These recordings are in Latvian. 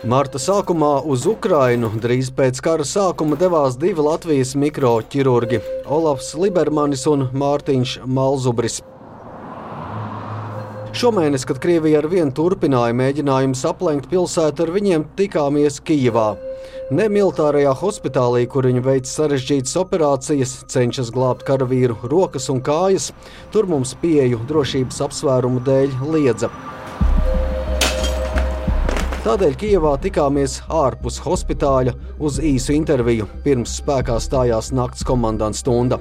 Marta sākumā uz Ukrainu drīz pēc kara sākuma devās divi Latvijas mikroķirurgi – Olafs Libermanis un Mārtiņš Malzubris. Šomēnes, kad Krievija ar vien turpināja mēģinājumus aplenkt pilsētu, ar viņiem tikāmies Kijevā. Ne militārajā hospitālī, kur viņi veic sarežģītas operācijas, cenšas glābt karavīru rokas un kājas, tur mums pieeju drošības apsvērumu dēļ liedza. Tādēļ Kijevā tikāmies ārpus hospitāļa uz īsu interviju, pirms spēkā stājās nakts komandanta stunda.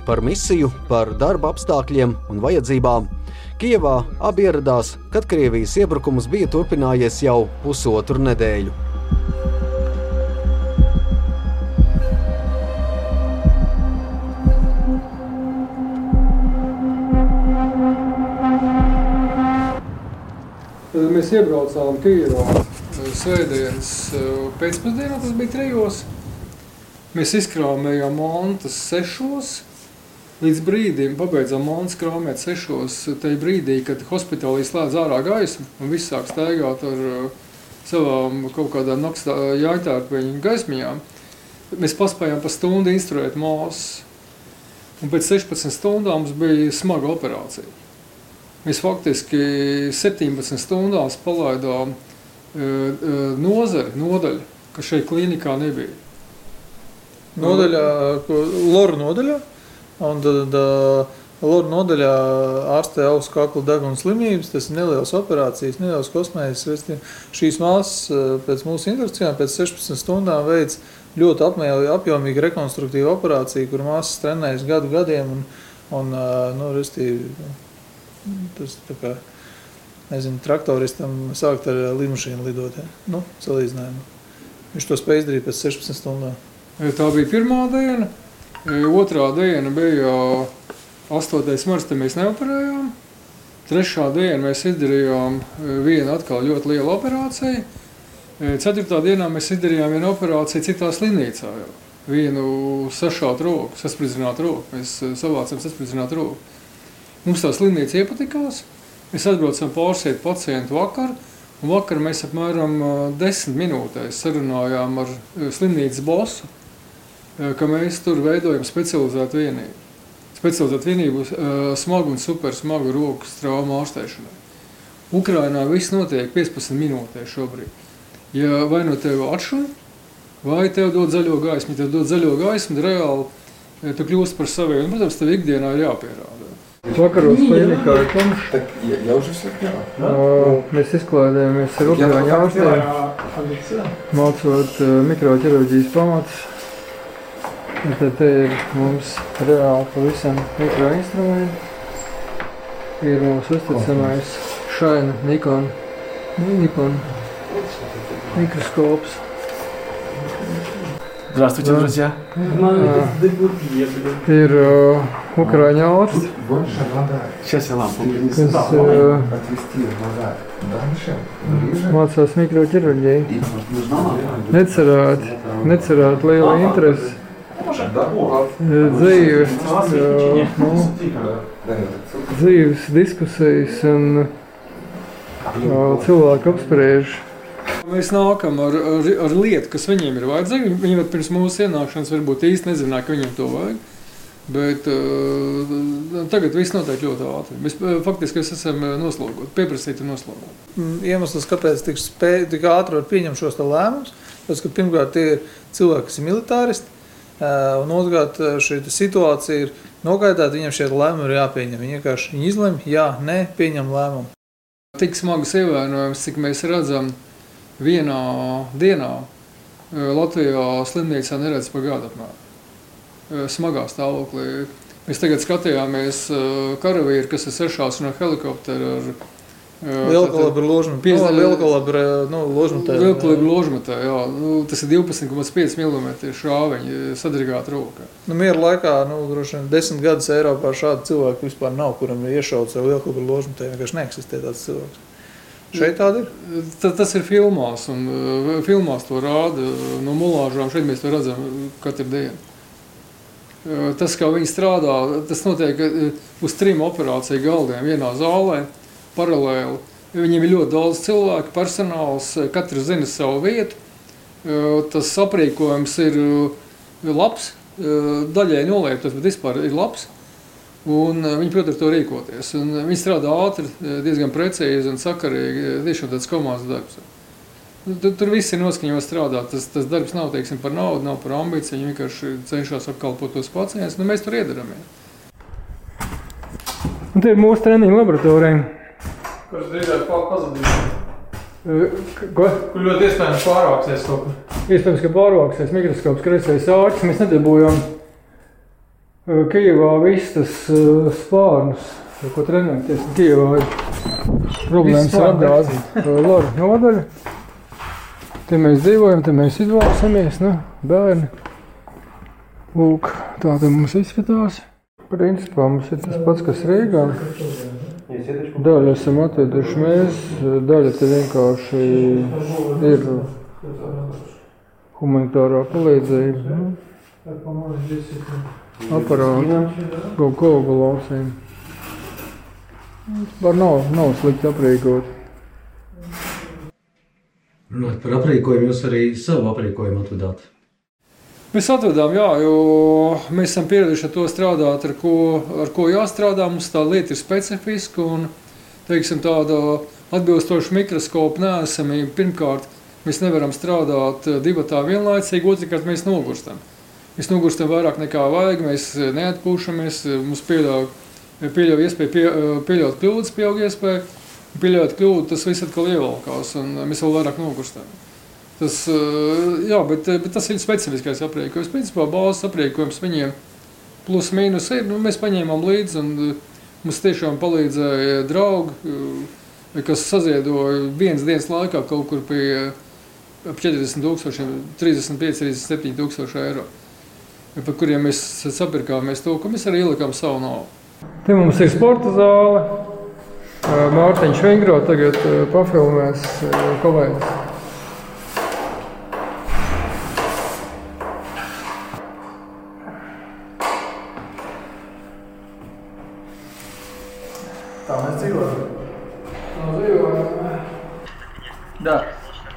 Par misiju, par darba apstākļiem un vajadzībām. Kijevā abi ieradās, kad Krievijas iebrukums bija turpinājies jau pusotru nedēļu. Mēs iebraucām Kijevā svētdienas pēcpusdienā, tas bija 3. Mēs izkrāmējām mantas 6. Līdz brīdim pabeidzām mantas krāmēt 6. Tajā brīdī, kad hospitālī slēdz ārā gaismu un viss sāk staigāt ar savām kaut kādām nakts jāņtārpeņu gaismiņām, mēs paspējām pa stundu instruēt māsas. Un pēc 16 stundām mums bija smaga operācija. Mēs faktiski 17 stundās palaidām nodaļu, kas šeit klīnikā nebija. Nodaļā, Loru nodaļā, un tad Loru nodaļā ārstē augstu kakla deguna slimības, tas ir nelielas operācijas, nelielas kosmējas. Šīs māsas pēc mūsu instrukcijām pēc 16 stundām veids ļoti apjomīgu rekonstruktīvu operāciju, kur māsas trenējas gadiem un tas tā kā, traktoristam sākt ar lidmašīnu lidot, salīdzinājumu. Viņš to spēj izdarīt pēc 16 stundām. Tā bija pirmā diena. Otrā diena bija 8. marts, te mēs neoperējām. 3. diena mēs izdarījām vienu atkal ļoti lielu operāciju. 4. dienā mēs izdarījām vienu operāciju citā slimnīcā. Vienu sašātu roku, saspridzinātu roku. Mēs savācam saspridzinātu roku. Mums tā slimnīca iepatikās. Mēs atbraucam pārsiet pacientu vakar, un vakar mēs apmēram 10 minūtēs sarunājām ar slimnīcas bosu, ka mēs tur veidojam specializētu vienību. Specializētu vienību smagu un supersmagu rokas traumu ārstēšanai. Ukrainā viss notiek 15 minūtēs šobrīd. Ja vai no tevi atšuļ, vai tev dod zaļo gaismu. Ja tev dod zaļo gaismu, tad reāli tu kļūst par saviem. Protams, tev ikdienā ir jāpierāda. Vakaros klinikā ir tumšs. Mēs izklaidējamies ar Ukraiņu ārstiem, mācot mikroķirurģijas pamatus. Tad te ir mums reāli pavisam mikroinstrumenti. Ir mūsu uzticamais Shine Nikon mikroskops. Здравствуйте, друзья. Ir Ukraiņu ārsti, Сейчас я лампу kas mācās mikroķirurģiju. Necerāt liela interesi. Dzīves diskusijas un cilvēku apspriež. Mēs nākam ar lietu, kas viņiem ir vajadzīga. Viņi pirms mūsu ienākšanas varbūt īsti nezināja, ka viņiem to vajag. Bet tagad viss notiek ļoti ātri. Mēs faktiski esam noslogoti, pieprasīti noslogoti. Iemesls, kāpēc tik ātri var pieņemt šos lēmumus, tas, ka pirmkārt tie ir cilvēki, kas ir militāristi, un otrkārt šī situācija ir nogaidāta, viņiem šie lēmumi ir jāpieņem. Viņi vienkārši izlemj, jā, nē, pieņem lēmumu. Tik smagas ievainojums, cik mēs redzam, vienā dienā Latvijā slimnīcā neredz pa gadu apmēram. Smagā stāvoklī. Mēs tagad skatījāmies karavīri, kas ir sešās no helikoptera ar lielkalibru ložmetē. Lielkalibru ložmetē, jā. Tas ir 12,5 mm šāviņi sadrigāta roka. Miera laikā, droši vien 10 gadus Eiropā šādu cilvēku vispār nav, kuram ir iešauts ar lielkalibru ložmetē. Vienkārši neeksistē tāds cilvēks. Šeit tāda ir? Tas ir filmās, un filmās to rāda no mulāžām. Šeit mēs to redzam katru dienu. Tas, kā viņi strādā, tas notiek uz 3 operāciju galdiem vienā zālē, paralēli. Viņiem ir ļoti daudz cilvēku, personāls, katrs zina savu vietu. Tas aprīkojums ir labs, daļai nolietos, bet vispār ir labs. Un viņi, protams, to rīkoties. Un viņi strādā ātri, diezgan precīzi un sakarīgi, tiešām tāds komandas darbs. Tur viss ir noskaņots strādāt. Tas darbs nav, teiksim, par naudu, nav par ambīciju. Viņi vienkārši cenšas apkalpot tos pacientus. Mēs tur iedaram. Un tie ir mūsu treniņu laboratorija. Kurš drīzāk pazudīs? Ko? Kur ļoti iespējams pārvāksies kaut kur? Iespējams, ka pārvāksies mikroskops, kreisais āķis. Mēs nedabūjām Kijevā viss tas spārnus, ko trenēties. Kijevā ir problēmas ar apgāzi. Loru nodaļa. Te mēs dzīvojam, te mēs izvalsamies, bērni. Lūk, tā te mums izskatās. Principā mums ir tas pats, kas Rīgā. Daļu esam atveduši mēs, daļa te vienkārši ir humanitārā palīdzība. Aparāti, kaut ko lausiem. Var nav slikti aprīkot. Runāt par aprīkojumu, jūs arī savu aprīkojumu atvedāt? Mēs atvedām, jā, jo mēs esam pieraduši ar to strādāt, ar ko jāstrādā. Mums tā lieta ir specifiska un, teiksim, tāda atbilstoša mikroskopa neesamība. Pirmkārt, mēs nevaram strādāt divatā vienlaicīgi, otrkārt mēs nogurstam. Mēs nogurstam vairāk nekā vajag, mēs neatpūšamies, mums pieļauj iespēju pieļaut kļūdas, pieaug iespēju. Pieļaut kļūdu, tas viss atkal ievalkās un mēs vēl vairāk nogurstam. Bet tas ir specifiskais aprīkojums. Principā bāzes aprīkojums viņiem plus mīnus ir. Mēs paņēmām līdzi un mums tiešām palīdzēja draugi, kas saziedoja vienas dienas laikā kaut kur pie ap 40,000, 35–37,000 eiro, par kuriem mēs sapirkāmies to, ko mēs arī ielikām savu naudu. Te mums ir sporta zāle. Mārtiņš Vingro tagad pafilmēs kolēģis. Tā mēs dzīvojam. Да.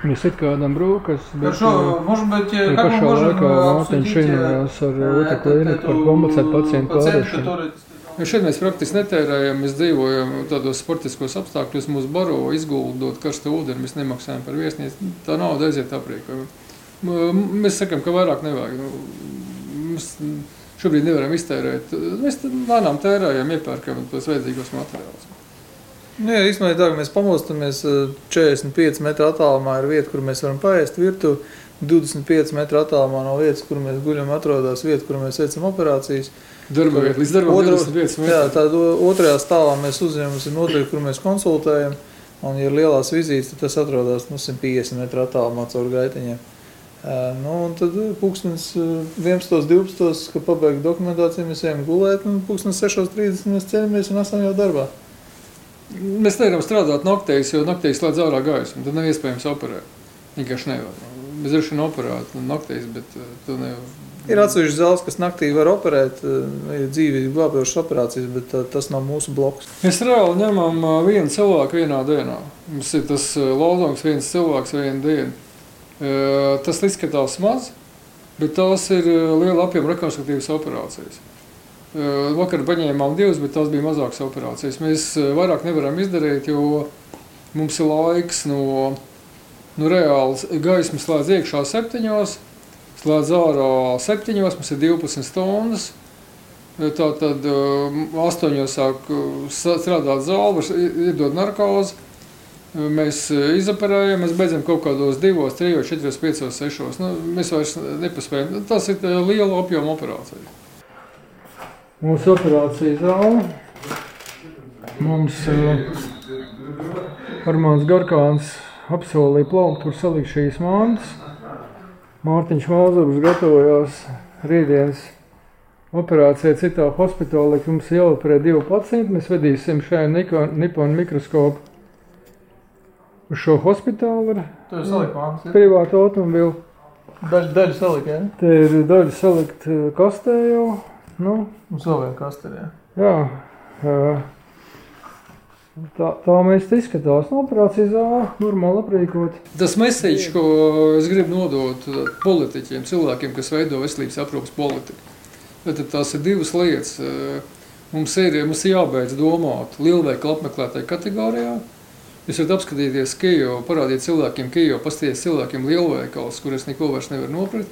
Mēs it kādam brūkas, bet может быть, как мы можем обсудить otru klīniku par komplicētu pacientu pārēšanu. Šeit mēs praktiski netērējam, mēs dzīvojam tādos sportiskos apstākļos, mūs baro, izguldot karstu ūdeni, mēs nemaksājam par viesnīcu, tā nauda aiziet aprīkojumu. Mēs sakam, ka vairāk nevajag. Mēs šobrīd nevaram iztērēt. Mēs lēnām tērējam, iepērkam tos vajadzīgos materiālus. Jā, īstenībā tā, ka mēs pamostamies 45 metru attālumā ir vieta, kur mēs varam paēst virtuvi, 25 metru attālumā no vietas, kur mēs guļam, atrodas vieta, kur mēs veicam operācijas. Darba vieta, līdz darbam 25 metri. Jā, tad otrajā stāvā mēs uzņemamies ir noteikti, kur mēs konsultējam, un ja ir lielās vizītes, tad tas atrodas 150 metru attālumā caur gaitiņiem. Un tad pulkstens 11:12, kad pabeig dokumentāciju, mēs ejam gulēt, un pulkstens 6:30 mēs ceļamies un esam jau darbā. Mēs nevaram strādāt naktīs, jo naktīs slēdz ārā gaismu, tad nav iespējams operēt. Vienkārši nevar. Mēs droši vien operētu naktīs, bet to nevar. Ir atsevišķi zāles, kas naktī var operēt, ir dzīvīgi glābjošas operācijas, bet tas nav mūsu bloks. Mēs reāli ņemam vienu cilvēku vienā dienā. Mums ir tas lozungs viens cilvēks vienu dienu. Tas izskatās maz, bet tās ir liela apjoma rekonstruktīvas operācijas. Vakar paņēmām 2, bet tās bija mazākas operācijas. Mēs vairāk nevaram izdarīt, jo mums ir laiks no reāls gaismas slēdz iekšā 7, slēdz ārā 7, mums ir 12 stundas. Tātad 8 sāk strādāt zāli, var iedot narkozi. Mēs izoperējam, mēs beidzam kaut kādos 2, 3, 4, 5, 6. Mēs vairs nepaspējam. Tas ir liela apjoma operācija. Mūsu operācija zāle. Mums Armāns Garkāns apsolīja plaukt, tur salikt šīs mantas. Mārtiņš Valzovs gatavojās rītdienas operācijai citā hospitālē, ka mums jāoperē 2 pacienti. Mēs vedīsim šajā Nippon mikroskopu uz šo hospitālu ar privātu automobili. Daļu salikt, jā? Te ir daļa salikt kastē jau. Mums vēl vien kastē, jā. Jā. Tā mēs izskatās no operācijas zāle, normāli aprīkot. Tas message, ko es gribu nodot politiķiem, cilvēkiem, kas veido veselības aprūpas politiku. Tad tās ir divas lietas. Mums ir jābeidz domāt lielveikalu apmeklētāju kategorijā. Jūs varat apskatīties Kijevu, parādīt cilvēkiem Kijevu, pastīties cilvēkiem lielveikals, kur es neko vairs nevaru nopirkt.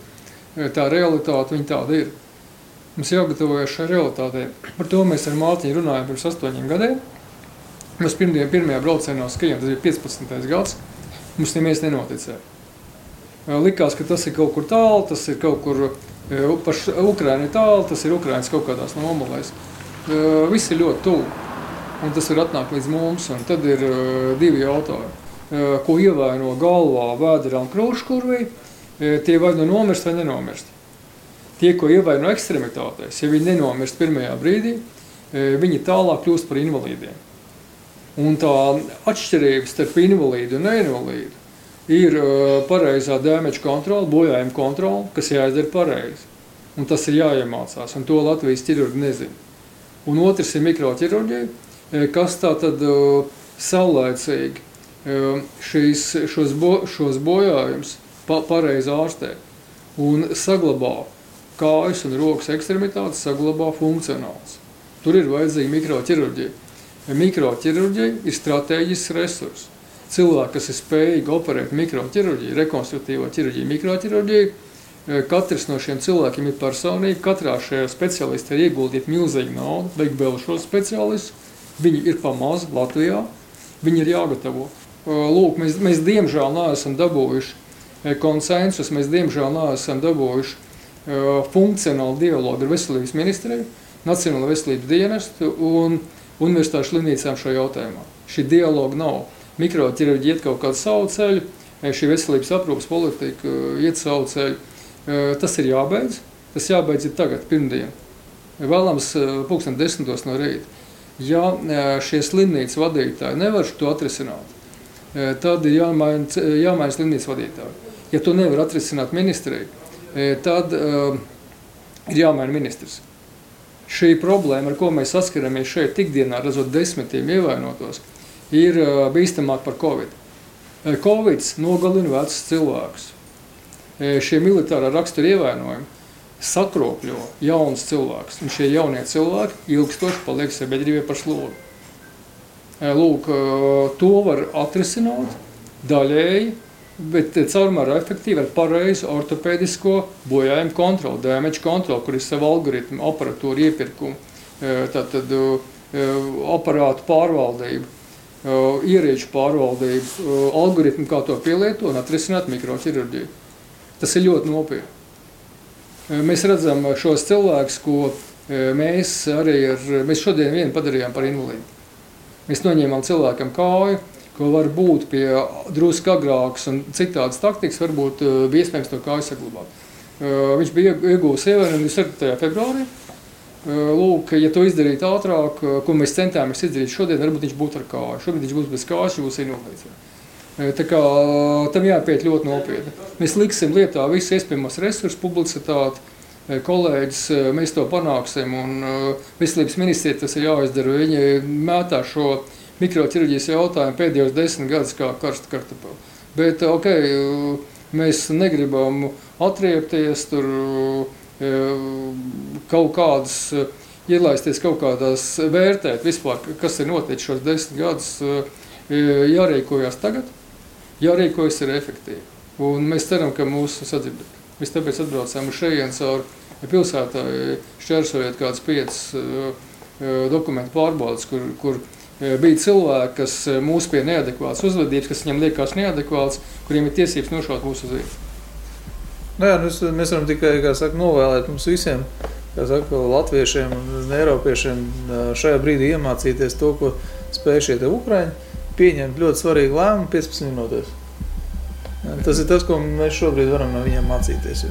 Tā realitāte, viņa tāda ir. Mums jāgatavojas šai realitātei. Par to mēs ar Mārtiņu runājam pirms 8 gadiem. Mēs pirmajā braucienā uz Kijevu, tas bija 15. gads, mums neviens nenoticēja. Likās, ka tas ir kaut kur tālu, tas ir kaut kur paš Ukraina ir tālu, tas ir Ukrainas kaut kādās nomalēs. Viss ir ļoti tuvu, un tas var atnākt līdz mums, un tad ir divi jautājumi. Ko ievaino galvā, vēderā un krūškurvī, tie vai nu nomirst vai nenomirst. Tie, ko ievaino ekstremitātēs, ja viņi nenomirst pirmajā brīdī, viņi tālāk kļūst par invalīdiem. Un tā atšķirība starp invalīdu un neinvalīdu ir pareizā damage kontrola, bojājuma kontrola, kas jāizdara pareizi. Un tas ir jāiemācās, un to Latvijas ķirurgi nezina. Un otrs ir mikroķirurģija, kas tā tad saulaicīgi šos bojājumus pareizi ārstē un saglabā kājas un rokas ekstremitātes, saglabā funkcionāls. Tur ir vajadzīga mikroķirurģija. Mikroķirurģija ir stratēģisks resurs. Cilvēki, kas ir spējīgi operēt mikroķirurģiju, rekonstruktīvo ķirurģiju, mikroķirurģiju, katrs no šiem cilvēkiem ir personīgi, katrā šajā specialistā ir ieguldīt milzīgi naudu, vajag vēl šos specialistus, viņi ir pamaz Latvijā, viņi ir jāgatavo. Lūk, mēs diemžēl neesam dabūjuši konsensus, mēs diemžēl neesam dabūjuši funkcionālu dialogu ar veselības ministriju, Nacionālo veselības dienestu un universitāšu slimnīcām šajā jautājumā. Šī dialoga nav. Mikroķirurģija iet kaut kādu savu ceļu, šī veselības aprūpas politika iet savu ceļu. Tas ir jābeidz. Tas jābeidz ir tagad, pirmdien. Vēlams 10:00 no rīta. Ja šie slimnīcas vadītāji nevar to atrisināt, tad ir jāmaina slimnīcas vadītāji. Ja to nevar atrisināt ministrija, tad ir jāmaina ministrs. Šī problēma, ar ko mēs saskaramies šeit ikdienā, redzot desmitiem ievainotos, ir bīstamāk par Covid. Covids nogalina vecus cilvēkus. Šie militārā rakstura ievainojumi sakropļo jaunus cilvēkus, un šie jaunie cilvēki ilgstoši paliek sabiedrībai par slogu. Lūk, to var atrisināt daļēji, bet caurmērā efektīvi ar pareizu ortopēdisko bojājumu kontroli, damage kontroli, kur ir savu algoritmu, aparatūru iepirkumu, tātad aparātu pārvaldību, ierīču pārvaldību, algoritmu, kā to pielieto un atrisināt mikroķirurģiju. Tas ir ļoti nopietni. Mēs redzam šos cilvēkus, ko mēs šodien vienu padarījām par invalīdu. Mēs noņēmām cilvēkam kāju, ko var būt pie drusku agrākas un citādas taktikas, varbūt bija iespējams to kāju saglabāt. Viņš bija iegūs ievainojumu 4. februārī. Lūk, ja to izdarīt ātrāk, ko mēs centāmies izdarīt šodien, varbūt viņš būtu ar kāju. Šobrīd viņš būs bez kājas, viņš būs invalīds. Tā kā tam jāpiet ļoti nopietni. Mēs liksim lietā visu iespējamos resursus, publicitāti, kolēģis, mēs to panāksim, un veselības ministrija tas ir jāizdara. Viņi mētā šo mikroķirurģijas jautājumu pēdējos 10 gadus kā karstu kartupeli. Bet, mēs negribam atriepties, tur kaut kādas, ielaisties kaut kādās vērtēt vispār, kas ir noticis šos 10 gadus, jārīkojas tagad, jārīkojas ir efektīvi. Un mēs ceram, ka mūsu sadzirdēt. Mēs tāpēc atbraucām uz šejienes caur pilsētā, šķērsojot kādas 5 dokumentu pārbaudes, kur bija cilvēki, kas mūs pie neadekvātas uzvedības, kas viņam liekas neadekvāts, kuriem ir tiesības nošaut mūsu uz vietu. Jā, mēs varam tikai, novēlēt mums visiem, latviešiem un eiropiešiem šajā brīdī iemācīties to, ko spēj šie Ukraiņi, pieņemt ļoti svarīgu lēmumu 15 minūtēs. Tas ir tas, ko mēs šobrīd varam no viņiem mācīties.